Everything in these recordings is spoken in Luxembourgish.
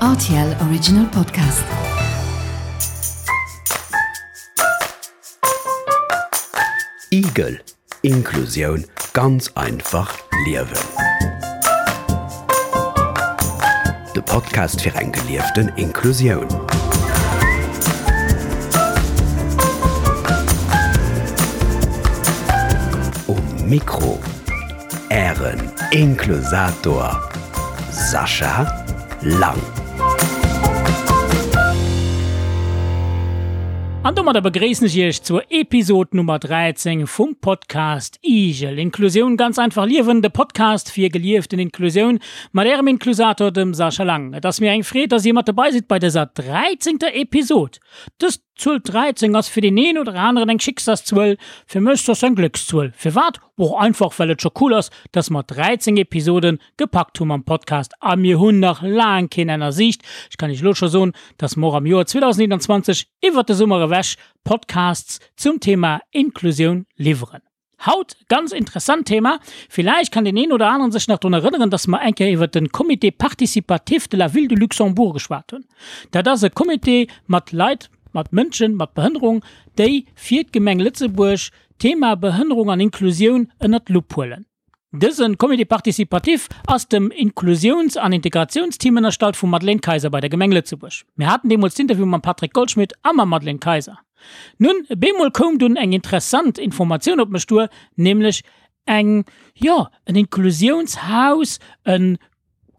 Rtl Original Podcast. Igel, Inklusioun ganz einfach liewen. De Podcast fir eng gelieften Inklusioun. Um Mikro Ären Inklusator Sascha Lang. An domadder begréissen ech Iech zur Episod Nummer 13 vum Podcast Igel, Inklusioun ganz einfach liewen, de Podcast fir gelieften Inklusioun mat Ärem Inklusator, dem Sascha Lang. Et ass mir eng Freed, dass Dir mat dobei sidd bei dëser dräizéngter Episod. Dës D'Zuel 13 ass fir deen een oder aneren eng Schicksalszuel, fir mech soss eng Gléckszuel. Firwat? Och einfach well et scho cool ass, dass mer 13 Episoden gepackt hu mam Podcast a mir hunn nach laang keen Enn a Siicht. Ech kann iech elo scho soen, dass mer och am Joer 2021 iwwert de Summer ewech Podcasts zum Thema Inklusioun liwweren. Haut ganz interessant Thema. Villäicht kann deen een oder aneren sech nach drun erënneren, dass mer eng Kéier iwwert den Comité participatif de la Ville de Luxembourg geschwat hunn. Dat ass e Comité mat Leit, mat Mënschen mat Behënnerung, déi fir d'Gemeng Lëtzebuerg d'Thema Behënnerung an Inklusioun ënnert d'Lupp huelen. Dëse Comité participatif ass dem Inklusiouns an Integratiounsteam ënnerstallt vum Madeleine Kayser bei der Gemeng Lëtzebuerg. Mir haten deemools d'Interview mam Patrick Goldschmidt a mam Madeleine Kayser. Nun, bemol koum dunn eng interessant Informatioun op mech duer, nämlech eng, jo, en Inklusiounshaus, e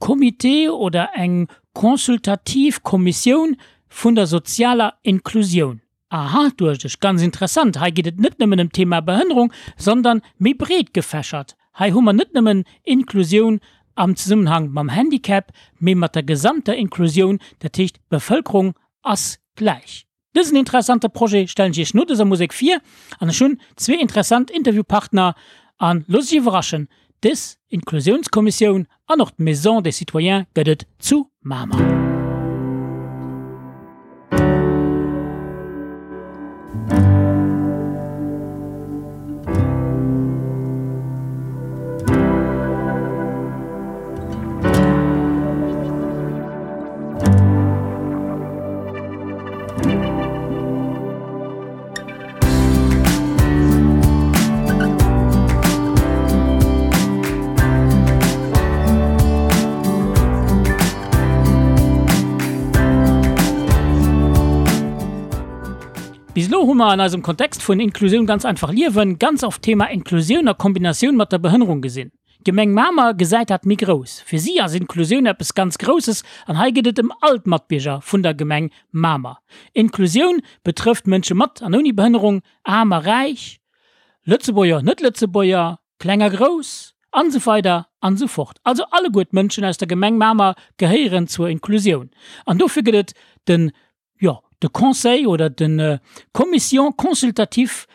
Comité oder eng consultativ Kommissioun vun der sozialer Inklusioun. Aha, duecht ech, ganz interessant, hei geet et net nëmmen ëm d'Thema Behënnerung, sondern méi breet gefächert. Hei hu mer net nëmmen Inklusioun am Zesummenhang mam Handicap, mee mat der gesamter Inklusioun, dat heescht d'Bevëlkerung ass gläich. Dësen interessante Projet stellen ech iech no dëser Musek vir an ech hunn zwee interessant Interviewpartner an loosst iech iwwerraschen, dës Inklusiounskommissioun an och d'Maison des Citoyens gëtt et zu Mamer. Bis elo hu mer an eisem Kontext vun Inklusioun ganz einfach liewen ganz oft d'Thema Inklusioun a Kombinatioun mat der Behënnerung gesinn. D'Gemeng Mamer gesäit dat méi grouss. Fir si ass Inklusioun eppes ganz Grousses an hei geet et ëm all d'Matbierger vun der Gemeng Mamer. Inklusioun betrëfft Mënsche mat an ouni Behënnerung, aarm a räich, Lëtzebuerger, Net-Lëtzebuerger, kleng a grouss, an esou weider an esou fort. Also alleguer d'Mënschen aus der Gemeng Mamer gehéieren zur Inklusioun an dofir gëtt et de jo, de Conseil oder de Commission consultative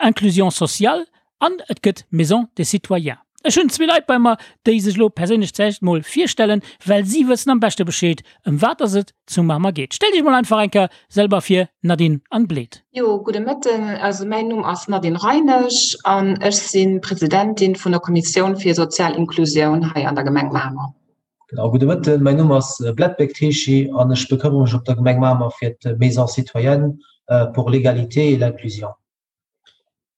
inclusion sociale an et gëtt d'Maison des citoyens. Ech hunn zwee Leit bei mer, déi sech elo perséinlech zeréischt mol virstellen, well si wëssen am beschte Bescheed, ëm wat dass et zu Mamer geet. Stellt Iech mol einfach eng Kéier selber vir, Nadine an Bled. Jo, gudde Mëtten. Also mäin Numm ass Nadine Reinesch an ech si Presidentin vun der Kommissioun fir sozial Inklusioun hei an der Gemeng Mamer. Genau, gudde Mëtten. Mäin Numm ass Bled Bekteshi an ech bekëmmere mech op der Gemeng Mamer fir d'Maison citoyenne pour l'égalité et l'inclusion.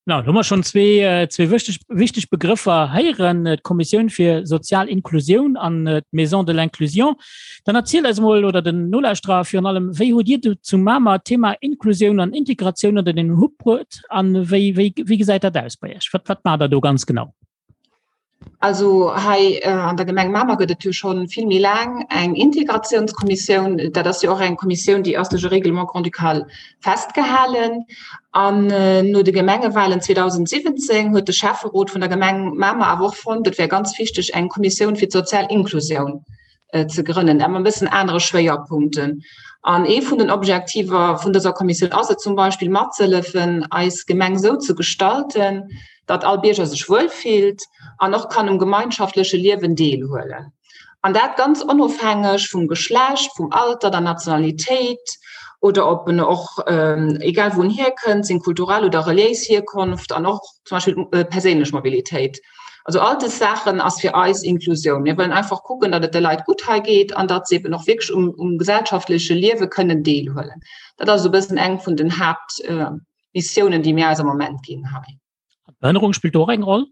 Na, do hu mer schonn zwee, zwee wichteg, wichteg Begrëffer héieren, d'Kommissioun fir sozial Inklusioun an d'Maison de l'inclusion. Dann erzielt eis emol, oder den Nolauschterer virun allem, wéi hutt Dir do zu Mamer d'Thema Inklusioun an Integratioun ënner den Hutt bruet a wéi, wéi, wéi gesäit dat aus bei Iech? Wat, wat maacht Der do ganz genau? Also hei an der Gemeng Mamer gëtt et jo schonn vill méi laang eng Integratiounskommissioun. Dat ass jo och eng Kommissioun, déi ass duerch e Règlement grand-ducal festgehalen. An no de Gemengewahlen 2017 huet de Schäfferot vun der Gemeng Mamer awer och fonnt, et wär ganz wichteg, eng Kommissioun fir d'sozial Inklusioun ze grënnen, awer e bëssen anere Schwéierpunkten. An ee vun den Objektiver vun dëser Kommissioun ass et zum Beispill matzehëllefen, eis Gemeng esou ze gestalten, datt all Bierger sech wuel fillt an och kann um gemeinschaftleche Liewen deelhuelen. An dat ganz onofhängeg vum Geschlecht, vum Alter, der Nationalitéit oder ob en och, egal wou en hierkënnt, seng kulturell oder reliéis Hierkonft an och zum Beispill d'perséinlech Mobilitéit. Also all des Saachen ass fir eis Inklusioun. Mir wëllen einfach kucken, datt et de Leit gutt hei geet an datt se eben och wierklech um, um gesellschaftleche Liewe kënnen deelhuelen. Dat ass esou e bëssen eng vun den Haaptmissiounen, déi mir eis am Moment ginn hei. Behënnerung spillt do och eng Roll?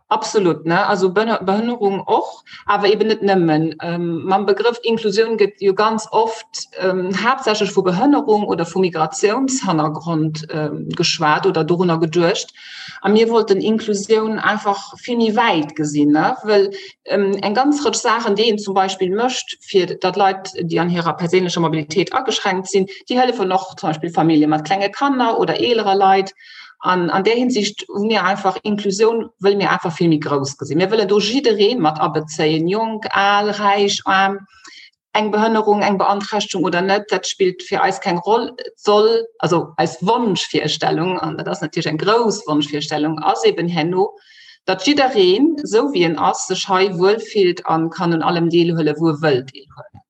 Absolut, ne? Also Behënnerung och, awer eben net nëmmen. Ähm, mam Begrëff Inklusioun gëtt jo ganz oft ähm, haaptsächlech vu Behënnerung oder vu Migratiounshannergrond ähm, geschwat oder dorunner geduecht. A mir wollten Inklusioun einfach vill méi wäit gesinn, ne? Well ähm, eng ganz Rëtsch Saachen, déi een zum Beispill mécht, fir datt Leit, déi an hirer perséinlecher Mobilitéit ageschränkt sinn, déi hëllefen och zum Beispill Famillje mat klenge Kanner oder eelere Leit. An an där Hinsicht hu mir einfach Inklusioun wëlle mir einfach vill méi grouss gesinn. Mir wëllen do jidderee mat abezéien, jonk, al, räich, aarm, eng Behënnerung, eng Beanträchtegung oder net, dat spillt fir eis keng Roll. Et soll, also eis Wonschvirstellung, an dat ass natierlech eng grouss Wonschvirstellung, ass eben herno, datt jiddereen, esou wéi en ass, sech hei wuelfillt a kann un allem deelhuelen, wou e wëll deelhuelen.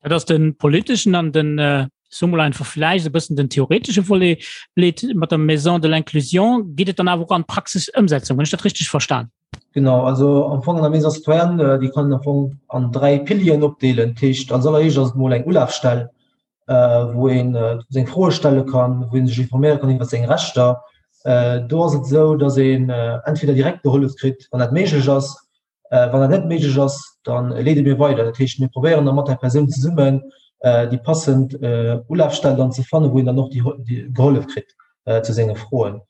Dat ass den politeschen an den äh, so mal einfach vielleicht e bëssen den theoretesche Volet Bled mat der Maison de l'inclusion geet et dann awer och an Praxisëmsetzung, hunn ech dat richteg verstan? Genau, also am Fong an der Maison citoyenne, äh, déi kann een am Fong an dräi Pilieren opdeelen. Dat heescht, als alleréischt ass et mol eng Ulafstell, äh, wou een äh, seng Froe stelle kann, wou een sech informéiere kann iwwer seng Rechter. Äh, do ass et esou, dass een äh, entweder direkt gehollef kritt, wann dat méiglech ass, Wann dat net méiglech ass, da leede mir weider. Dat heescht, mir probéieren da mat där Persoun zesummen déi passend Ulafstell dann ze fannen, wou een dann och déi gehollef kritt zu senge Froen.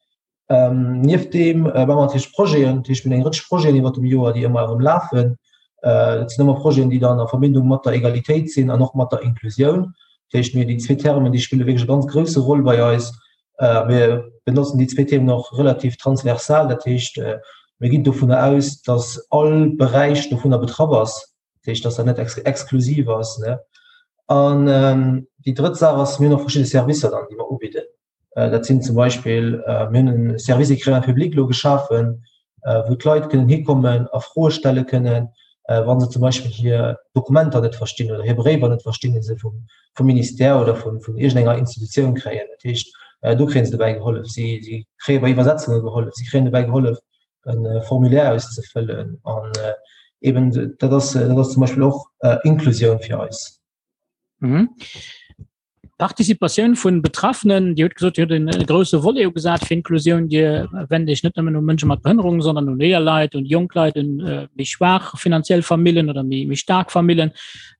Nieft deem maache mer natierlech Projeten. Dat heescht, mir hunn eng Rëtsch Projeten iwwert dem Joer, déi ëmmer erëm lafen. Dat sinn ëmmer Projeten, déi dann a Verbindung mat der Egalitéit sinn an och mat der Inklusioun. Dat heescht, mir déi zwee Termen, déi spille wierklech e ganz grousse Roll bei eis. Mir benotzen déi zwee Themen och relativ transversal, dat heescht, mir ginn dovunner aus, datt all Beräich dovunner betraff ass, dat heescht, datt dat net exklusiv ass. An déi drëtt Saach ass, mir hunn och verschidde Servicer dann, déi mer ubidden. Dat sinn zum Beispill, mir hunn e Service écrivain public elo geschafen, wou d'Leit kënnen hikommen a Froe stelle kënnen, wa se zum Beispill hir Dokumenter net verstinn oder hir Bréiwer net verstinn, déi se vum, vum Ministère oder vun, vun iergendenger Institutioun kréien. Dat heescht, do kréie se dobäi gehollef. Si, si kréie bei Iwwersetzunge gehollef, si kréien dobäi gehollef, e Formulaire auszefëllen. An eben dat ass, dat ass zum Beispill och Inklusioun fir eis. Mhm. Participatioun vun Betraffenen, Dir hutt gesot, Dir hutt en grousse Volet ugesat fir Inklusioun. Dir wennt Iech net nëmmen u Mënsche mat Behënnerung, sondern un eeler Leit, un jonk Leit, un méi schwaach finanziell Famillen oder méi méi staark Famillen.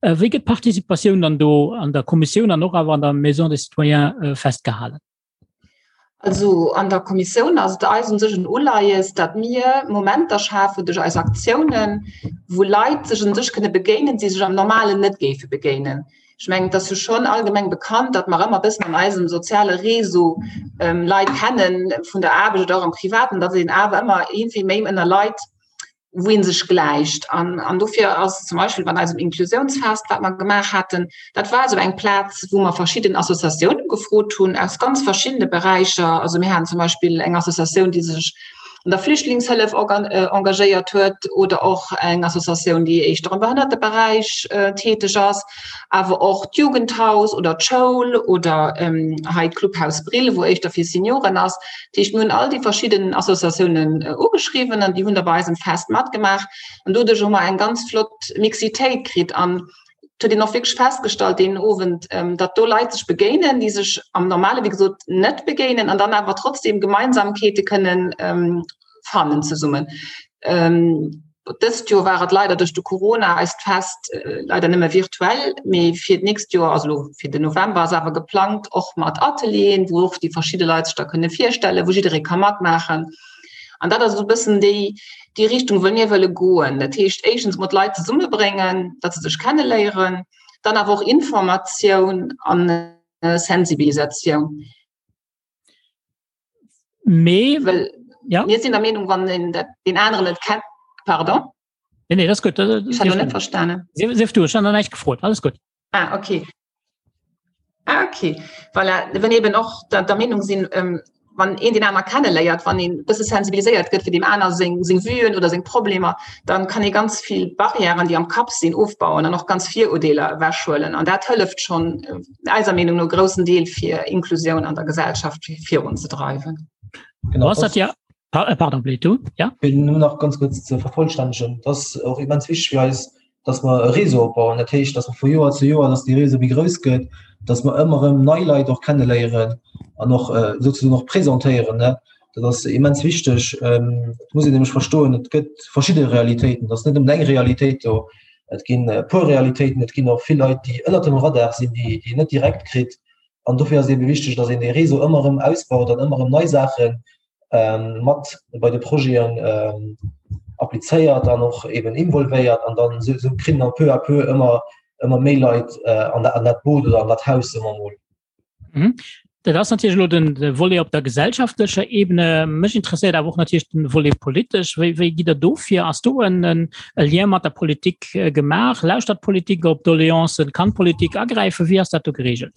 Wéi gëtt d'Participatioun dann do an der Kommissioun an och awer an der Maison des Citoyens festgehalen? Also an der Kommissioun ass et eis un sech en Uleies, datt mir Momenter schafen duerch eis Aktiounen, wou Leit sech un sech kënne begéinen, déi sech am Normalen net géife begéinen. Ech mengen, et ass jo schonn allgemeng bekannt, datt mer ëmmer e bëssen an eisem soziale Réseau Leit kennen, vun der Aarbecht oder och am Privaten, datt een awer ëmmer iergendwéi méi ënner Leit wou ee sech gläicht. An, an dofir ass zum Beispill bei eisem Inklusiounsfest, wat mer gemaach haten, dat war esou eng Plaz, wou mer verschidden Associatiounen gefrot hunn aus ganz verschiddene Beräicher. Also mir haten zum Beispill eng Associatioun, déi sech an der Flüchtlingshëllef engagéiert huet oder och eng Associatioun, déi éischter am Behënnerteberäich täteg ass, awer och d'Jugendhaus oder d'Schoul oder hei d'Clubhaus Brill, wou éischter fir Senioren ass. Dat heescht, mir hunn all déi verschidden Associatiounen ugeschriwwen an déi hunn da bei eisem Fest matgemaach. An doduerch hu mer eng ganz flott Mixitéit kritt. An et huet een och wierklech festgestallt deen Owend, datt do Leit sech begéinen, déi sech am Normale wéi gesot net begéinen an dann awer trotzdem Gemeinsamkeete kënnen fannen zesummen. Dëst Joer war et leider duerch de Corona eist Fest leider nëmme virtuell, mee fir d'nächst Joer, also elo fir den November, ass awer geplangt och mat Atelieren, wou och déi verschidde Leit sech da kënne virstellen, wou jidderee ka matmaachen. An dat ass esou e bëssen déi, déi Richtung, wou mir wëlle goen. Dat heescht éischtens emol d'Leit zesummebréngen, datt se sech kenneléieren, dann awer och Informatioun an Sensibilisatioun. Mee well ja. mir sinn der Meenung, wann een dat den aneren net kennt, pardon. Nee, nee, das gut. Ich habe net verstanden. Sief du, ich habe näischt gefrot. Alles gut. Ah, okay. Ah, okay. Voilà, wenn eben och der, der Meenung sinn, ähm, wann een den aner kenneléiert, wann een bësse sensibiliséiert gëtt fir dem aner seng, seng Vuen oder seng Problemer, dann kann ee ganz vill Barrièren, déi am Kapp sinn, ofbauen an och ganz Virurdeeler ewechhuelen. An dat hëlleft schonn äh, eiser Meenung no groussen Deel fir Inklusioun an der Gesellschaft virunzedreiwen. Genau, das, das ja. Äh, pardon, Bled, du? Ja? Fir nëmmen nach ganz kuerz ze vervollstännegen, et ass och immens wichteg fir eis, dass mer e Réseau opbauen. Dat heescht, dass mer vu Joer zu Joer, dass dee Réseau méi grouss gëtt, dass mer ëmmer erëm nei Leit och kenneléieren an och äh, souzesoen och presentéieren. Ne? Dat ass immens wichteg. Ähm, et muss een nämlech verstoen, et gëtt verschidde Realitéiten. Et ass net nëmmen eng Realitéit do. Et ginn e puer Realitéiten, et ginn och vill Leit, déi ënnert dem Radar sinn, déi, déi een net direkt kritt. An dofir ass et ebe wichteg, dass een dee Réseau ëmmer erëm ausbaut an ëmmer erëm nei Saachen mat bei de Projeten applizéiert an och eben involvéiert an dann esou esou kritt een peu à peu ëmmer ëmmer méi Leit an dat an dat Boot oder an dat Haus soe mer emol. Mhm. Dat ass natierlech elo den de Volet op der gesellschaftlecher Ebene. Mech interesséiert awer och natierlech den Volet politesch. Wéi wéi gitt Der do vir? Ass do en en e Lien mat der Politik gemaach? Lauschtert d'Politik op Doleancen? Kann d'Politik agräifen? Wéi ass dat do geregelt?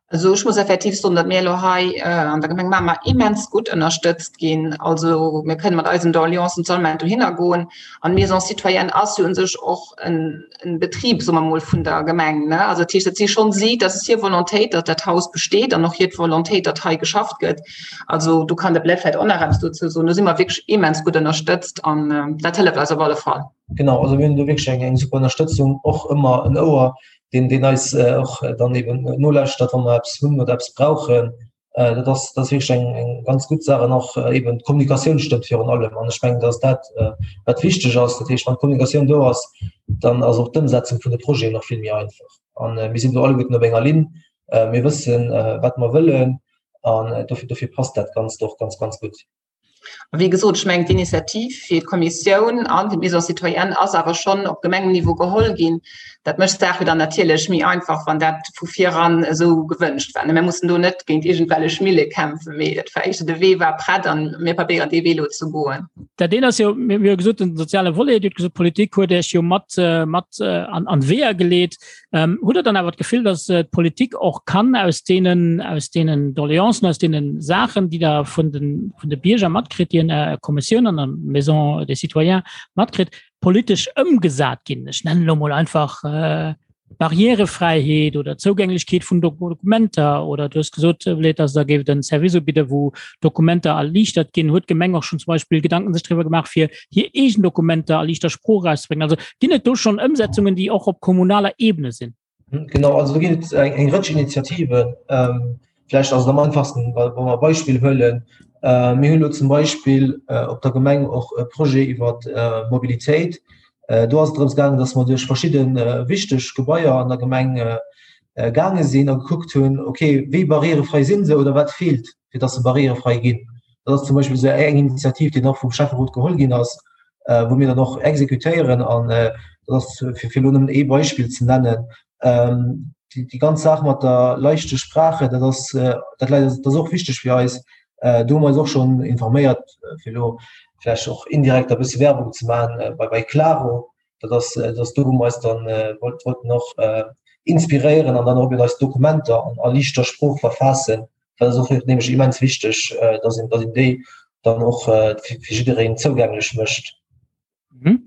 Also ech muss effektiv soen, datt mir elo hei an der Gemeng Mamer immens gutt ënnerstëtzt ginn. Also mir kënnen mat eisen Doleancen solle mer dohinner goen. An d'Maison citoyenne ass jo u sech och en Betrib, soe mer mol, vun der Gemeng. Also dat heescht, dat si schonn si, dat ass hir Volontéit, datt dat Haus besteet an och hir Volontéit, datt hei geschafft gëtt. Also do kann de Blaise vläicht och nach eppes dozou soen. Do si mer wierklech immens gutt ënnerstëtzt an dat hëlleft eis op alle Fall. Genau, also mir hunn do wierklech eng super Ënnerstëtzung, och ëmmer en Ouer deen deen eis äh, och äh, dann eben nolauschtert, wann mer eppes hunn oder eppes brauchen. Äh, dat ass dat ass wierklech eng eng ganz gutt Saach an och äh, eben d'Kommunikatioun stëmmt virun allem. An ech mengen, dass dat äh, wat wichteg ass. Dat heescht, wann d'Kommunikatioun do ass, dann ass och d'Ëmsetzung vun de Projeten nach vill méi einfach. An äh, mir sinn do alleguerten op enger Linn. Äh, mir wëssen, äh, wat mer wëllen an äh, dofir, dofir passt dat Ganzt och ganz, ganz gutt. A wéi gesot, ech mengen, d'Initiativ fir d'Kommissioun an fir d'Maison citoyenne ass awer schonn op Gemengenniveau geholl ginn. Dat mécht d'Saach jo dann natierlech méi einfach, wann dat vu viran esou gewënscht war. Mir mussen do net géint iergendwellech Mille kämpfen, mee et war éischter, de Wee war prett an mir probéieren dee Wee elo ze goen. Dat eent ass jo, mir hu gesot, den soziale Volet, Dir hutt gesot, d'Politik huet Iech jo mat, mat an d'Weeër geleet. Ähm, hutt Der dann awer d'Gefill, dass äh, d'Politik och kann aus deenen, aus deenen Doleancen, aus deenen Saachen, déi der vun den, vun de Bierger matkritt, déi en der Kommissioun an der Maison des Citoyens matkritt, politesch ëmgesat ginn? Ech nennen elo mol einfach äh, Barrierefräiheet oder Zougänglechkeet vun Dokumenter oder du hues gesot, Bled, dass der géif den Service ubidde, wou Dokumenter erliichtert ginn. Huet d'Gemeng och schon zum Beispill Gedanken sech driwwer gemaach, fir hir eegen Dokumenter a liichter Sprooch erauszebréngen? Also ginn et do schonn Ëmsetzungen, déi och op kommunaler Ebene sinn? Genau, also do ginn et eng, eng Rëtsch Initiativen. Ähm, vläicht ass et am einfachsten, wa, wa mer e Beispill huelen. Äh, mir hunn elo zum Beispill äh, op der Gemeng och e Projet iwwer äh, Mobilitéit. Äh, do ass et drëms gaangen, dass mer duerch verschidde äh, wichteg Gebaier an der Gemeng äh, äh, gaange sinn a gekuckt hunn, okay, wéi barrierefrei sinn se oder wat feelt, fir dass se barrierefrei ginn. Dat ass zum Beispill esou eng Initiativ, déi och vum Schäfferot geholl ginn ass, äh, wou mir dann och exekutéieren an äh, dat ass fir fir elo nëmmen ee Beispill ze nennen. Ähm, déi, déi ganz Saach mat der leichte Sprache, dat ass, äh, dat läit, dat ass och wichteg fir eis. Äh, do hu mer eis och schonn informéiert, äh, fir elo vläicht och indirekt e bësse Werbung ze maachen, äh, bei, bei Klaro. Dat ass, dat ass do, wou mer eis dann äh, wollt, wollten och äh, inspiréieren an dann och eben eis Dokumenter an a liichter Sprooch verfaassen. Dat ass och nämlech immens wichteg, äh, dass een, dass een déi dann och äh, fir, fir jiddereen zougänglech mécht. Mhm.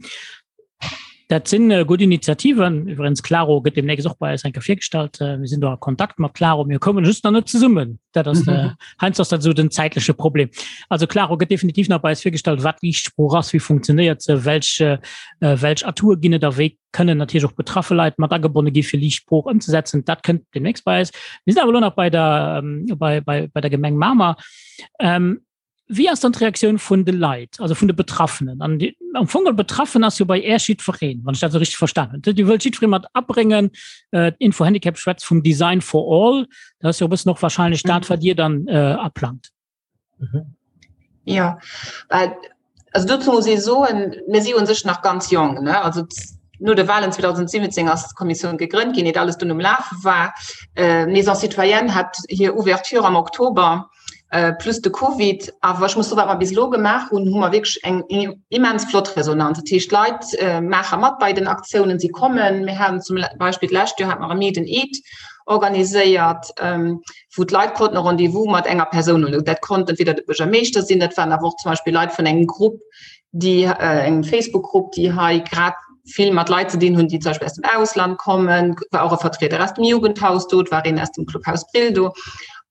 Dat sinn äh, gutt Initiativen. Iwwerens Claro gëtt demnächst och bei eis enke virgestallt. Äh, mir sinn do a Kontakt mat Claro, mir kommen just nach net zesummen. Dat ass äh, heiansdo ass dat esou den zäitleche Problem. Also Claro gëtt definitiv nach bei eis virgestallt, wat Liichtsprooch ass, wéi funktionéiert se, welch, äh, welch Atoure ginn et a wéi kënnen natierlech och betraffe Leit mat agebonne gi fir Liicht Sprooch ëmzesetzen. Dat kënnt demnächst bei eis. Mir sinn awer elo nach bei der, ähm, bei, bei, bei der Gemeng Mamer. Ähm, wéi ass dann d'Reaktioun vun de Leit, also vun de Betraffenen? An die, am Fong geholl betraffen ass jo bei Äech jiddwereen, wann ech dat esou richteg verstanen hunn. Dir wëllt jiddweree mat abréngen. Äh, d'Info-Handicap schwätzt vum Design for all. Dat ass jo e bëssen och wahrscheinlech dat, wat Dir dann äh, aplangt. Mhm. Ja, well, also dozou muss ee soen, mir si un sech nach ganz jong, ne? Also no de Wahlen 2017 ass d'Kommissioun gegrënnt ginn, iert alles dunn um Lafe war. Äh, Maison Citoyenne hat hir Ouverture am Oktober, äh, plus de Covid. Awer ech muss soen, wat mer bis elo gemaach hunn, hu mer wierklech eng immens flott Resonanz. Dat heescht, d'Leit äh, maache mat bei den Aktiounen, si kommen. Mir haten zum Beispill d'lescht Joer hat mer e Meet and Eat organiséiert. Ähm, wou d'Leit konnten e Rendez-vous mat enger Persoun hunn. Dat konnt entweder de Buergermeeschter sinn, dat waren awer och zum Beispill Leit vun engem Grupp, déi äh, engem Facebook-Grupp, déi hei grad vill mat Leit ze dinn hunn, déi zum Beispill aus dem Ausland kommen, war och e Vertrieder aus dem Jugendhaus do, et war een aus dem Clubhaus Brill do.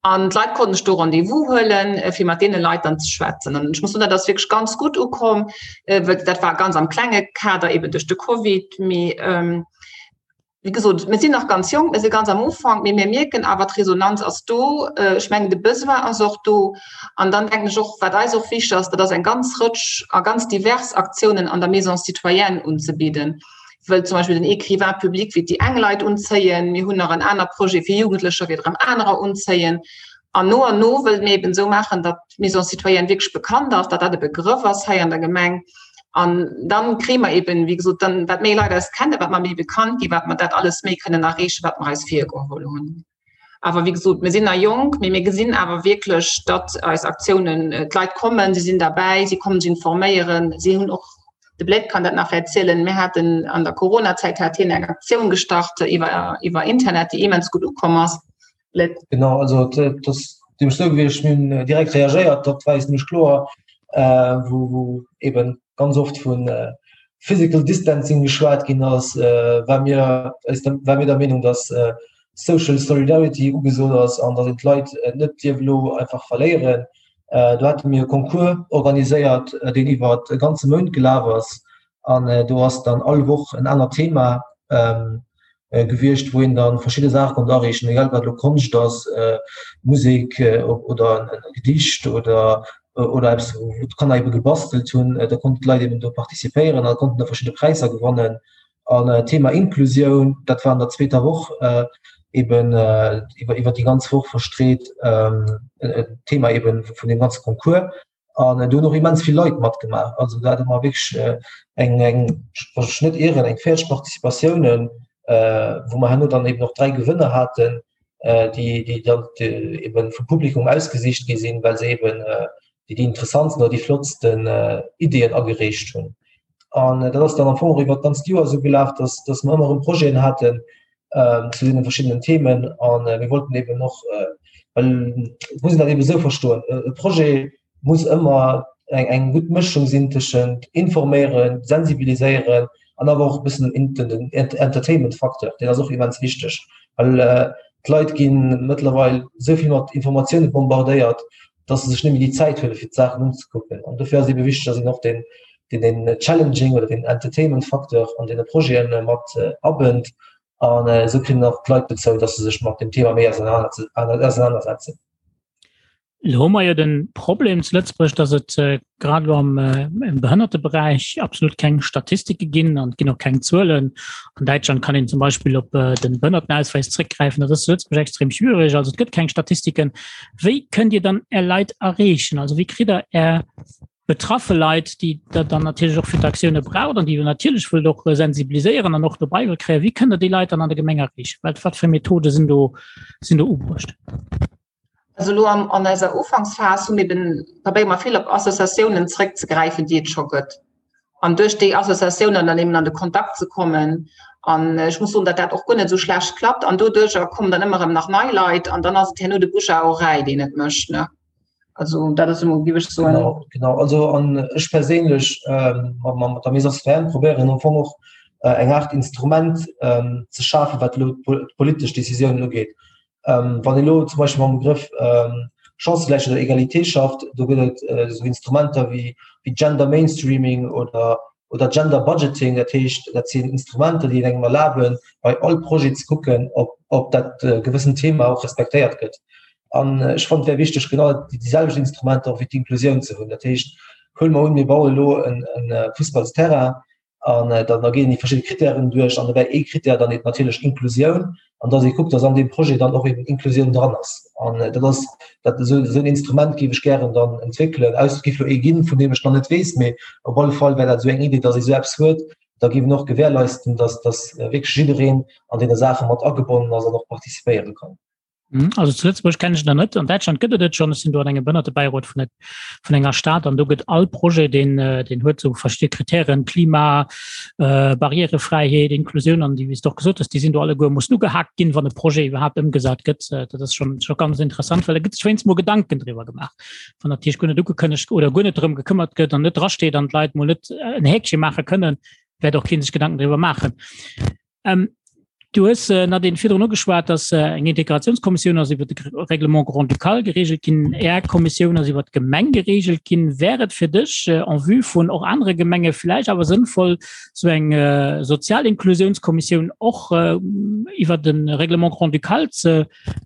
An d'Leit konnten sech do Rendez-vous huelen, fir mat deene Leit dann ze schwätzen. An ech muss soen, dat ass wierklech ganz gutt ukomm, well dat war ganz am klenge Kader, eben duerch de Covid. Mee wéi gesot, mir sinn nach ganz jonk, mir si ganz am Ufank, mee mir mierken awer, d'Resonanz ass do. Ech mengen, de Besoin ass och do. An dann denken ech och, wat eis och wichteg ass, dat ass eng ganz Rëtsch a ganz divers Aktiounen an der Maison citoyenne unzebidden. Wëll zum Beispill den Écrivain public wéi déi eng Leit unzéien, mir hunn nach en aner Projet fir Jugendlecher, wéi erëm anerer unzéien. An no an no wëlle mir eben esou maachen, datt d'Maison citoyenne wierklech bekannt ass, datt dat e Begrëff ass hei an der Gemeng. An dann kréie mer eben, wéi gesot, dann wat méi Leit eis kennen, wat mer méi bekannt ginn, wat mer dat alles méi kënnen erreechen, wat mer eis virgeholl hunn. Awer wéi gesot, mir sinn nach jonk, mee mir gesinn awer wierklech, datt eis Aktiounen, d'Leit kommen, si sinn derbäi, si kommen sech informéieren, si hunn och, de Bled kann dat nach erzielen, mir haten an der Coronazäit hat hien eng Aktioun gestart iwwer, iwwer Internet, déi immens gutt ukomm ass. Bled. Genau, also dat ass nämlech esou gewiescht, mir hunn direkt reagéiert, dat war eis nämlech kloer, wou, wou eeben ganz oft vu Physical Distancing geschwat ginn ass, war mir, war mir der Meenung, datt Social Solidarity ugesot ass an datt een d'Leit net dierf elo einfach verléieren. Do hate mir e Concours organiséiert, deen iwwer e ganze Mount gelaf ass an do ass dann all Woch en anert Thema gewiescht, wou een dann verschidde Saache konnt areechen, egal ob dat elo Konscht ass, Musek oder e Gedicht oder oder eppes wou d'Kanner ebe gebastelt hunn. Da konnten d'Leit eben do participéieren a konnten da verschidde Präisser gewannen. An Thema Inklusioun, dat war an der zweeter Woch eben iwwer iwwer déi ganz Woch verstreet, Thema eben vun deem ganze Concours. An do hunn och immens vill Leit matgemaach. Also do hate mer wierklech eng, eng, wann ech mech net ieren, eng 40 Participatiounen, wou mer herno dann eben och 3 Gewënner haten, déi, déi dann eben vum Publikum ausgesicht gi sinn, well se eben déi, déi interessantsten oder déi flottsten Ideeën agereecht hunn. An dat ass dann am Fong och iwwer d'ganzt Joer esou gelaf, dass, dass mer ëmmer erëm Projeten haten zu deene verschiddenen Themen. A mir wollten eben och, well et muss een dat eben esou verstoen, e Projet muss ëmmer eng, eng gutt Mëschung sinn tëschent informéieren, sensibiliséieren an awer och e bëssen den Entertainment-Facteur, deen ass och immens wichteg, well d'Leit gi mëttlerweil esou vill mat Informatioune bombardéiert, dass se sech net méi déi Zäit huele fir d'Saachen unzekucken. An dofir ass ebe wichteg, dass een och den, den, den Challenging oder den Entertainment-Facteur an deene Projete mat abënnt. An esou kritt een och d'Leit dozou, dass se sech mat dem Thema méi ausenanersetzen. Elo hu mer jo de Problem zu Lëtzebuerg, dass et grad elo am Behënnerteberäich absolut keng Statistike ginn an et ginn och keng Zuelen. An Däitschland kann een zum Beispill op de Behënnertenausweis zréckgräifen. Dat ass zu Lëtzebuerg extrem schwierig. Also et gëtt keng Statistiken. Wéi kënnt Dir dann Är Leit erreechen? Also wéi kritt Der Är betraffe Leit, déi Der dann natierlech och fir d'Aktioune braucht an déi Der natierlech wëllt och sensibiliséieren an och dobäi wëllt kréien, wéi kënnt Der déi Leit dann an der Gemeng erreechen? Wat, wat fir Methode sinn do, sinn do ubruecht? Also elo an, an eiser Ufanksphas hu mir eben, probéiere mer vill op Associatiounen zréckzegräifen, déi et scho gëtt. An duerch déi Associatiounen dann eben an de Kontakt ze kommen. An ech muss soen, datt dat och guer net esou schlecht klappt. An doduercher kommen dann ëmmer erëm nach nei Leit an dann ass et herno de Bouche à oreille, deen et mécht, ne? Also dat ass emol, géif ech soen. Genau, genau. Also an ech perséinlech mat, mat der Maison citoyenne probéieren am Fong och eng Aart Instrument ze schafen, wat elo d'politesch Décisiounen ugeet. Ähm, wann elo zum Beispill mam Begrëff ähm, Chancegläichheet oder Egalité schafft, do gëtt et äh, so Instrumenter wie, wie Gender Mainstreaming oder, oder Gender Budgeting, dat heescht, dat sinn Instrumenter, déi engem erlaben, bei all Projet ze kucken, ob, ob dat äh, gewëssen Thema och respektéiert gëtt. An äh, ech fand wär wichteg genau déi, déi selwecht Instrumenter och fir d'Inklusioun ze hunn. Dat heescht, huele mer un, mir baue lo en, en äh, Fussballsterrain, an äh, dann da ginn déi verschidde Kritären duerch an dobäi ee Kritär dann eben natierlech Inklusioun an dass ee kuckt, dass an deem Projet dann och eben Inklusioun dran ass. An äh, dat ass dat esou esou en Instrument géif ech gären dann entwéckelen. Aus géif lo ee ginn, vun deem ech nach net weess, mee op alle Fall wär dat esou eng Idee, dass ee sou eppes huet, da géif en och gewährleisten, dass dass äh, wierklech jiddereen an deene Saache mat agebonnen ass an och participéiere kann. Mhm. Also zu Lëtzebuerg kenne ech der net. An Däitschland gëtt et et schon. Ech sinn do an engem Behënnertebäirot vun der, vun enger Stad an do gëtt all Projet, deen, äh, deen huet sou verschidde Kritären, Klima, äh, Barrierefräiheet, Inklusioun an déi, wéi s de och gesot hues, déi sinn do alleguer mussen ugehaakt ginn, wann e Projet iwwerhaapt ëmgesat gëtt. Äh, dat ass schon, schon ganz interessant, well da gëtt sech wéinst mol Gedanken driwwer gemaach. Wann natierlech guer net ugekënnegt oder guer net drëm gekëmmert gëtt an net drasteet an d'Leit mol net en Häkche maache kënnen, wäert och keen sech Gedanken driwwer maachen. Ähm. Du hues äh, Nadine virdrun ugeschwat, dass äh, eng Integrationskommissioun ass iwwer de Règlement grand-ducal geregelt ginn, Är Kommissioun ass iwwer d'Gemeng geregelt ginn. Wär et fir dech äh, en vue vun och anere Gemenge vläicht awer sënnvoll, sou eng äh, sozial Inklusionskommissioun och äh, iwwer de Règlement grand-ducal ze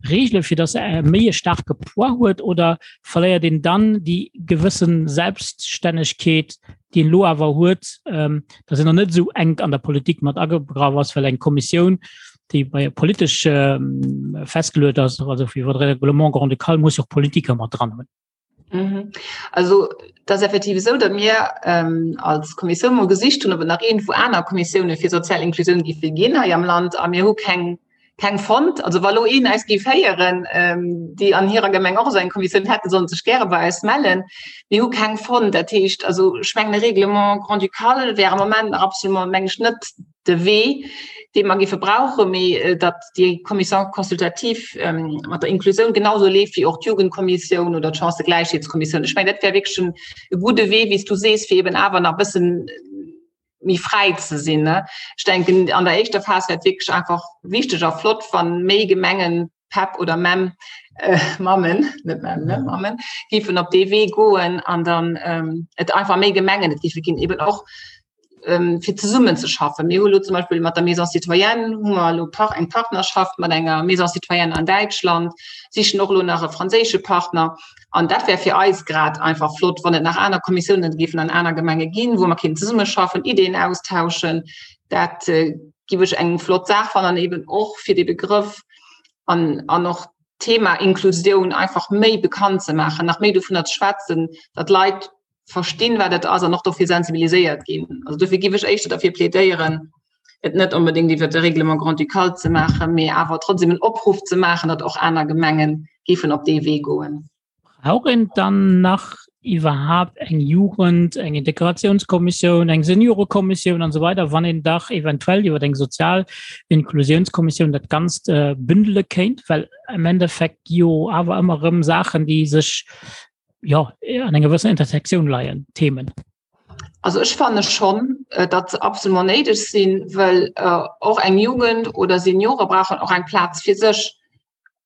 regelen, fir dass se méi e staarke Poids huet, oder verléiert een dann déi gewëssen Selbststännegkeet, déi een elo awer huet, ähm, dass een noch net esou enk an der Politik mat agegraff ass, well eng Kommissioun, déi bei politesch ähm, festgeluet ass, also iwwer de Règlement grand-ducal, muss jo och Politiker mat dran hunn. Mhm. Also dat ass effektiv esou, datt mir ähm, als Kommissioun mol gesicht hunn, ob et nach iergendwou aner Kommissioune fir sozial Inklusioun géife ginn hei am Land a mir hu keng keng fonnt. Also wa lo een eis géif héieren, ähm, déi an hirer Gemeng och esou eng Kommissioun hätten, sollen sech gäre bei eis mellen. Mir hu keng fonnt. Dat heescht, also ech mengen e Règlement grand-ducal wär am Moment nach absolument, meng ech, net de Wee, dee mer géife brauchen, mee äh, datt déi Commission consultative ähm, mat der Inklusioun genauso leeft wéi och d'Jugendkommissioun oder d'Chancëgläichheetskommissioun. Ech mengen, dat wär wierklech en e gudde Wee, wéi s du sees, fir eben awer nach e bëssen méi fräi ze sinn. Ne? Ech denken an der éischter Phas wär et wierklech einfach wichteg a flott, wann méi Gemengen PEP oder MEM äh, Mammen, net MEM, ne? Mammen, géifen op dee Wee goen an dann ähm, et einfach méi Gemengen et géife ginn, eben och ähm, fir zesummen ze schaffen. Mir hu lo zum Beispill mat der Maison Citoyenne hu mer lo par eng Partnerschaft mat enger Maison Citoyenne an Däitschland, sichen och lo nach e franséische Partner. An dat wär fir eis grad einfach flott, wann et nach aner Kommissiounen géifen an aner Gemenge ginn, wou mer kéinten zesummeschaffen, Ideen austauschen. Dat äh, giff ech eng flott Saach fannen an eben och fir de Begrëff an, an och d'Thema Inklusioun einfach méi bekannt ze maachen, nach méi dovunner ze schwätzen, datt Leit verstinn, wat et ass an och dofir sensibiliséiert ginn. Also dofir giff ech éischter derfir plädéieren, et net onbedéngt iwwer de Règlement grand-ducal ze maachen, mee awer trotzdem en Opruff ze maachen, datt och aner Gemenge géifen op dee Wee goen. Brauch een dann nach iwwerhaapt eng Jugend-, eng Integratiounskommissioun, eng Seniorekommissioun an esou weider, wann een dach eventuell iwwer eng sozial Inklusiounskommissioun dat Ganzt bündele kéint? Well am Endeffekt gi jo awer ëmmer erëm Saachen, déi sech, jo, an enger gewëssener Intersektioun leien, Themen. Also ech fanne schonn, datt se absolument néideg sinn, well och eng Jugend oder Seniore brauchen och eng Plaz fir sech.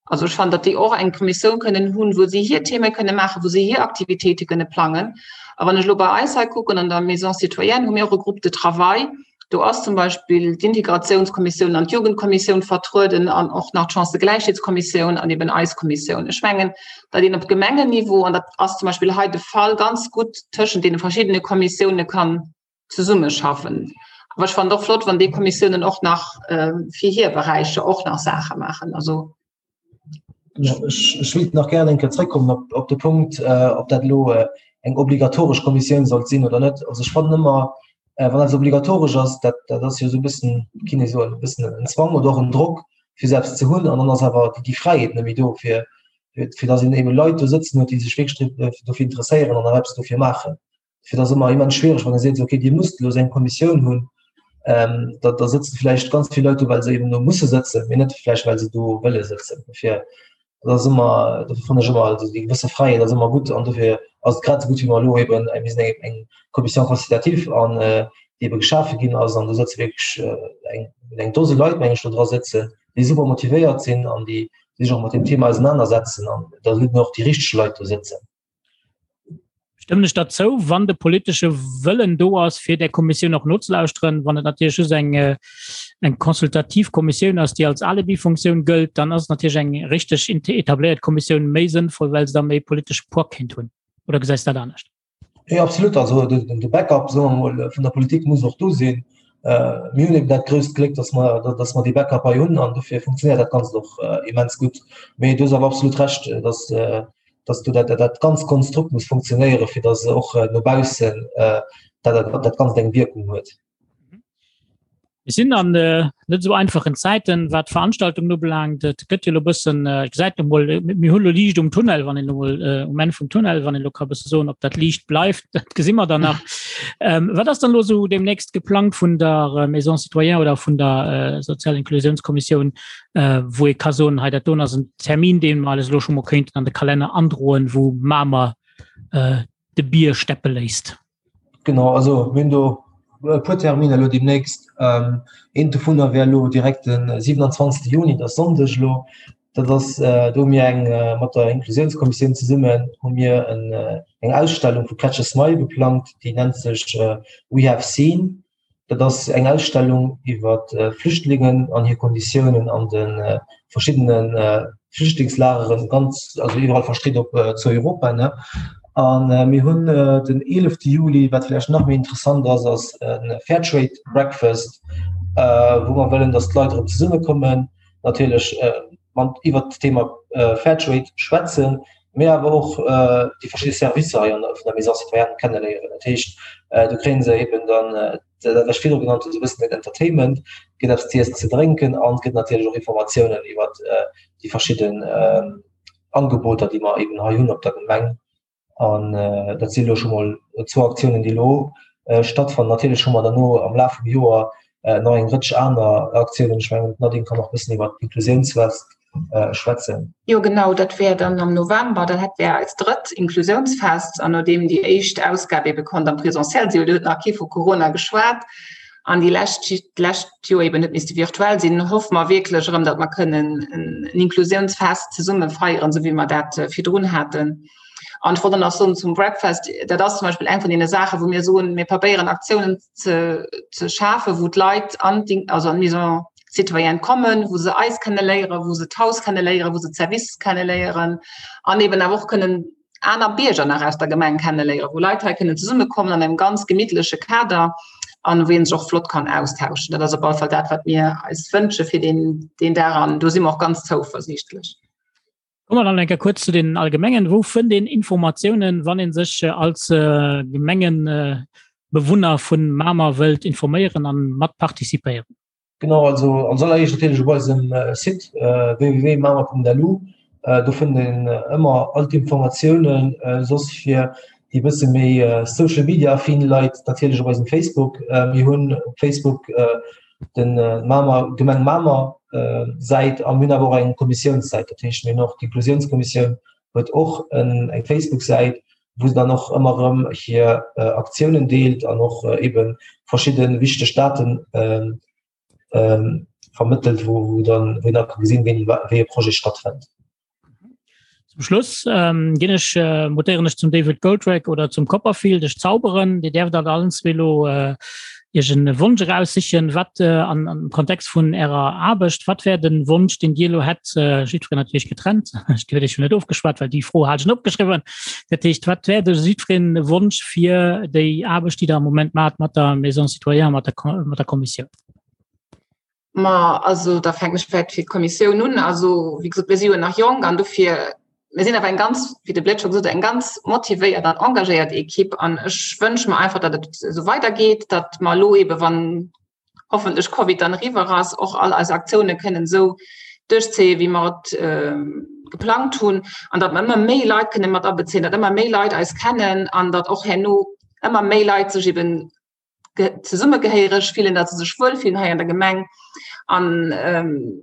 Also ech fannen, datt déi och eng Kommissioun kënnen hunn, wou si hir Theme kënne maachen, wou si hir Aktivitéite kënne plangen. A wann ech elo bei eis hei kucken, an der Maison citoyenne hu mir och e Groupe de travail. Do ass zum Beispill d'Integratiounskommissioun an d'Jugendkommissioun vertrueden an och nach d'Chancëgläichheetskommissioun an eben eis Kommissioun. Ech mengen, datt een op Gemengenniveau, an dat ass zum Beispill hei de Fall, ganz gutt tëschent deene verschiddene Kommissioune kann zesummeschaffen. Awer ech fannen et och flott, wann déi Kommissiounen och nach fir hir Beräicher och nach Saache maachen. Also Ech wéilt nach gären eng Kéier zréckkommen op, op de Punkt, äh, ob dat elo äh, eng obligatoresch Kommissioun sollt sinn oder net. Also ech fannen ëmmer, äh, wann eppes obligatoresch ass, dat, dat ass jo esou e bëssen, kinne ee soen, e bëssen en Zwang oder och en Drock, fir se eppes ze hunn. An dann ass awer déi, déi Fräiheet net méi do, fir, fir, fir datt een ebe Leit do sëtzen huet, déi sech wierklech dofir interesséieren an och eppes dofir maachen. Fir dat ass ëmmer immens schwiereg, wann ee seet, okay, Dir musst elo esou eng Kommissioun hunn, ähm, da, da sëtzen vläicht ganz vill Leit do, well se eben do musse sëtzen, mee net vläicht, well se do wëlle sëtzen. Dofir, dat ass ëmmer, dofir fannen ech ëmmer, also déi gewësse Fräiheet ass ëmmer gutt an dofir ass et grad esou gutt, wéi mer elo eben, mir sinn eng, eng Commission consultative an äh, déi ebe geschafe ginn ass an do sëtze wierklech äh, eng, eng Dose Leit, meng ech, do dra sëtzen, déi super motivéiert sinn an déi sech och mat dem Thema ausenanersetzen an da sollten och déi richteg Leit do sëtzen. Stëmmen ech der zou, wann de politesche Wëllen do ass, fir där Kommissioun och nozelauschteren. Wann et natierlech just eng, äh, eng consultativ Kommissioun ass, déi als Alibi-Funktioun gëllt, dann ass natierlech eng richteg etabléiert Kommissioun méi sënnvoll, well se da méi politesche Poids kéint hunn. Oder gesäis du dat anescht? Nee, absolut. Also de, de Backup soen wir mol, vun der Politik muss och do sinn. Äh, mir hunn eben dat grousst Gléck, dass mer, dass mer dee Backup hei hunn an dofir funktionéiert dat Ganzt och äh, immens gutt. Mee du hues awer absolut Recht, dass äh, dass du dat, dat ganz Konstrukt muss funktionéieren, fir dass och äh, no baussen äh, dat, dat, dat Ganzt eng Wirkung huet. Mir sinn an äh, net so einfachen Zäiten, wat Veranstaltungen ubelaangt. Et gëtt jo lo bëssen äh, gesäit mol mir hu lo Liicht um Tunnel, wann een mol äh, um Enn vum Tunnel, wann een lo ka bësse soen, ob dat Liicht bleift, dat gesi mer dann nach. Ähm, wat ass dann lo so demnächst geplangt vun der äh, Maison Citoyen oder vun der äh, Sozial Inklusionskommissioun, äh, wou ee ka soen, hei dat do ass en Termin, deen mer alles lo scho mol kéinten an de Kalenner androen, wou Mamer äh, de Bier steppe léisst? Genau, also mir hunn do. e puer Terminer elo deemnächst. Eent dovunner wär elo direkt de 27. Juni, dat ass Sonndeg elo. Dat ass, do hu mir eng, mat der Inklusiounskommissioun zesummen hu mir eng Ausstellung vu Catch a Smile geplangt, déi nennt sech We have seen. Dat ass eng Ausstellung iwwer Flüchtlingen an hir Konditiounen an de verschiddene Flüchtlingslageren, ganz, also iwwerall verstreet op zu Europa, ne. A mir hunn den 11 Juli, wat vläicht nach méi interessant ass, ass e Fairtrade Breakfast, wou mer wëllen, datt d'Leit erëm zesummekommen, natierlech mat iwwert d'Thema Fairtrade schwätzen, mee awer och déi verschidde Servicer hei an der vun der Maison citoyenne kenneléieren. Dat heescht, do kréie se eben dann dat, wat ech virdru genannt hunn, esou e bëssen den Entertainment, et gëtt eppes z'iessen, ze drénken an et gëtt natierlech och Informatiounen iwwert déi verschidden Angeboter, déi mer eben hei hunn op der Gemeng. An dat si elo scho mol zwou Aktiounen, déi elo stattfannen. Natierlech hu mer derno am Laf vum Joer nach eng Rëtsch aner Aktiounen. Ech mengen, d'Nadine kann och e bëssen iwwer d'Inklusiounsfest schwätzen. Jo genau, dat wär dann am November, dann hätt wär eist drëtt Inklusiounsfest. An nodeem déi éischt Ausgab ebe konnt am Presentiel sinn, do huet nach kee vu Corona geschwat, an déi lescht d'lescht Joer eben huet misste virtuell sinn, hoffe mer wierklech erëm, datt mer kënnen en Inklusiounsfest zesumme feieren, esou wéi mer dat virdrun haten. An ech wollt och nach soen zum Breakfast, dat ass zum Beispill eng vun deene Saachen, wou mir soen, mir probéieren Aktiounen ze, ze schafen, wou d'Leit an d'In-, also an d'Maison citoyenne kommen, wou se eis kenneléieren, wou se d'Haus kenneléieren, wou se d'Services kenneléieren an eben awer och kënnen aner Bierger nach aus der Gemeng kenneléieren, wou Leit hei kënnen zesummekommen an engem ganz gemittleche Kader an wou een sech och flott kann austauschen. Dat ass op alle Fall dat, wat mir eis wënsche fir deen, deen Dag an do si mer och ganz zouversiichtlech. Komme mer dann eng Kéier kuerz zu den Allgemengen. Wou fënnt een Informatiounen, wann ee sech als Gemengenbewunner vun Mamer wëllt informéieren an mat participéieren? Genau, also als alleréischt natierlech op eisem Site www.mamer.lu. Do fënnt een ëmmer all d'Informatiounen. Soss fir déi bësse méi Social Media affin Leit natierlech op eisem Facebook. Mir hunn op Facebook den Mamer, Gemeng Mamer Säit a mir hunn awer och eng Kommissiounssäit. Dat heescht mir hunn och d'Inklusiounskommissioun huet och eng Facebook-Säit, wou se dann och ëmmer erëm hir Aktiounen deelt an och ebe verschidde wichteg Daten vermëttelt, wou dann wou een da ka gesinn, wéini wéi e Projet stattfënnt. Zum Schluss ginn ech, mutéieren ech zum David Goldrake oder zum Copperfield, ech zauberen. Dir däerft alt allen zwee elo Iech en Wonsch eraussichen, wat an am Kontext vun Ärer Aarbecht, wat wär den Wonsch, deen Dir elo hätt, jiddwereen natierlech getrennt, ech huet Iech jo net ofgeschwat, well déi Fro hat ech net opgeschriwwen. Dat heescht, wat wär de jiddwereen Wonsch fir déi Aarbecht, déi Der am Moment maacht mat der Maison citoyenne, mat der mat der Kommissioun? Ma also da fänken ech vläicht fir d'Kommissioun un. Also wéi gesot, mir si jo nach jonk an dofir, mir sinn awer eng ganz, wéi de Bled scho gesot huet, eng ganz motivéiert an engagéiert Ekipp an ech wënsche mer einfach, datt et esou weidergeet, datt mer elo eebe wann hoffentlech Covid dann eriwwer ass, och all eis Aktioune kënnen esou duerchzéien, wéi mer et geplangt hunn an datt mer ëmmer méi Leit kënne mat abezéien, datt ëmmer méi Leit eis kennen an datt och herno ëmmer méi Leit sech eeben zesummegehéiereg fillen, datt se sech wuel fillen hei an der Gemeng. An ähm,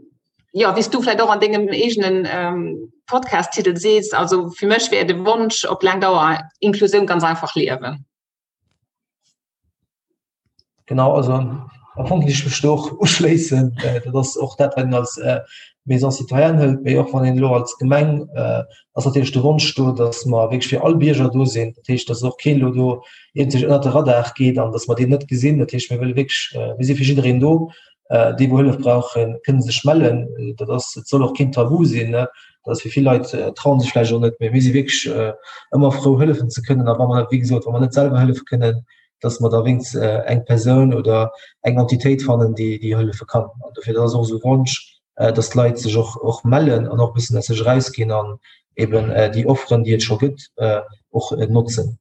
ja, wéi s du vläicht och an dengem eegenen ähm, Podcast-Titel sees, also fir mech wär de Wonsch op laang Dauer Inklusioun ganz einfach liewen. Genau, also am Fong géif ech mech do och uschléissen. Dat ass och dat, wat een als Maison citoyenne hëlt, mee och wann een elo als Gemeng ass natierlech de Wonsch do, datt mer wierklech fir all Bierger do sinn. Dat heescht, datt och keen elo do iergendwéi ënnert de Radar geet an datt mer deen net gesinn. Dat heescht, mir wëlle wierklech, mir si fir jiddereen do. Déi wou Hëllef brauchen, kënne sech mellen. Dat ass, et soll och keen Tabu sinn. Dat ass fir vill Leit trauen sech vläicht och net, mee mir si wierklech ëmmer frou hëllefen ze kënnen. A wa mer, wéi gesot, wa mer net selwer hëllefe kënnen, datt mer da wéinst eng Persoun oder eng Entitéit fannen, déi déi hëllefe kann. An dofir, dat ass och esou e Wonsch, dass d'Leit sech och, och mellen an och e bëssen aus sech erausginn an eben déi Offeren, déi et scho gëtt, och notzen.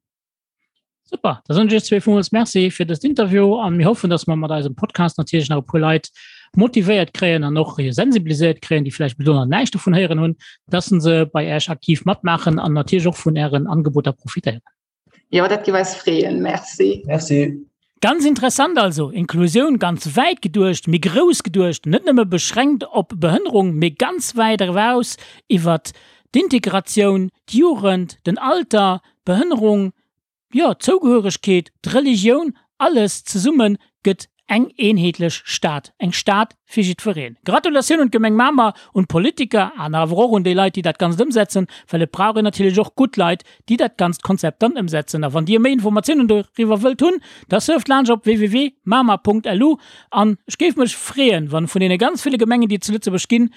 Super, da soen ech iech zwee villmools Merci fir dëst Interview an mir hoffen, dass mer mat eisem Podcast natierlech nach e puer Leit motivéiert kréien an och sensibiliséiert kréien, déi vläicht bis elo nach näischt dovun héieren hunn, dass se bei Iech aktiv matmaachen an natierlech och vun Ären Angeboter profitéieren. Jo, dat giff eis freeën. Merci. Merci. Ganz interessant also, Inklusioun ganz wäit geduecht, méi grouss geduecht, net nëmme beschränkt op Behënnerung, mee ganz wäit eraus iwwert d'Integratioun, d'Jugend, den Alter, d'Behënnerung, jo, d'Zougehöregkeet, d'Religioun. Alles zesumme gëtt eng eenheetlech Stad, eng Stad fir jiddwereen. Gratulatioun un d'Gemeng Mamer, un d'Politiker an awer och un déi Leit, déi dat Ganzt ëmsetzen, well et brauch een natierlech och gutt Leit, déi dat ganzt Konzept dann ëmsetzen. A wann Dir méi Informatiounen doriwwer wëllt hunn, da surft laanscht op www.mamer.lu an ech géif mech freeën, wann vun deene ganz ville Gemengen, déi et zu Lëtzebuerg ginn,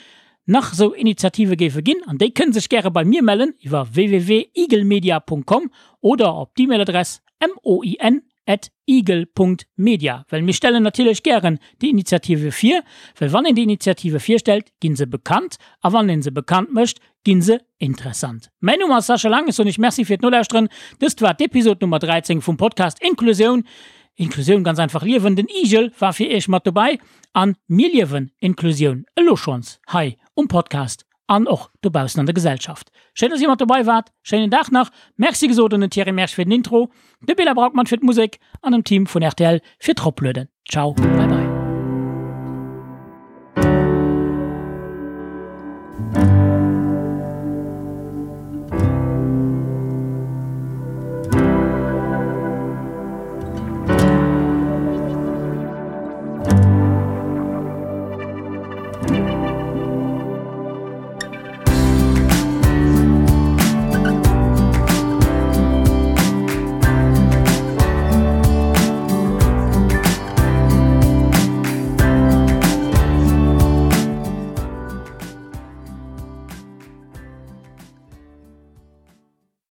nach esou Initiative géife ginn an déi kënne sech gäre bei mir mellen iwwer www.eaglemedia.com oder op d'E-Mail-Adress moin at igel Punkt media, well mir stellen natierlech gären déi Initiative vir, well wann een déi Initiative virstellt, gi se bekannt a wann ee se bekannt mécht, gi se interessant. Mäin Numm ass Sascha Lang, ech soen iech Merci fir d'Nolauschteren. Dëst war d'Episod Nummer 13 vum Podcast Inklusioun, Inklusioun ganz einfach liewen. Den Igel war fir iech mat dobäi an mir liewen Inklusioun elo schonns hei um Podcast an och dobaussen an der Gesellschaft. Schéin, dass Dir mat dobei waart. Schéinen Dag nach. Merci gesot un den Thierry Mersch fir den Intro, de Bela Braukmann fir d'Musek an dem Team vun rtl fir d'Roplueden. Ciao, bye bye.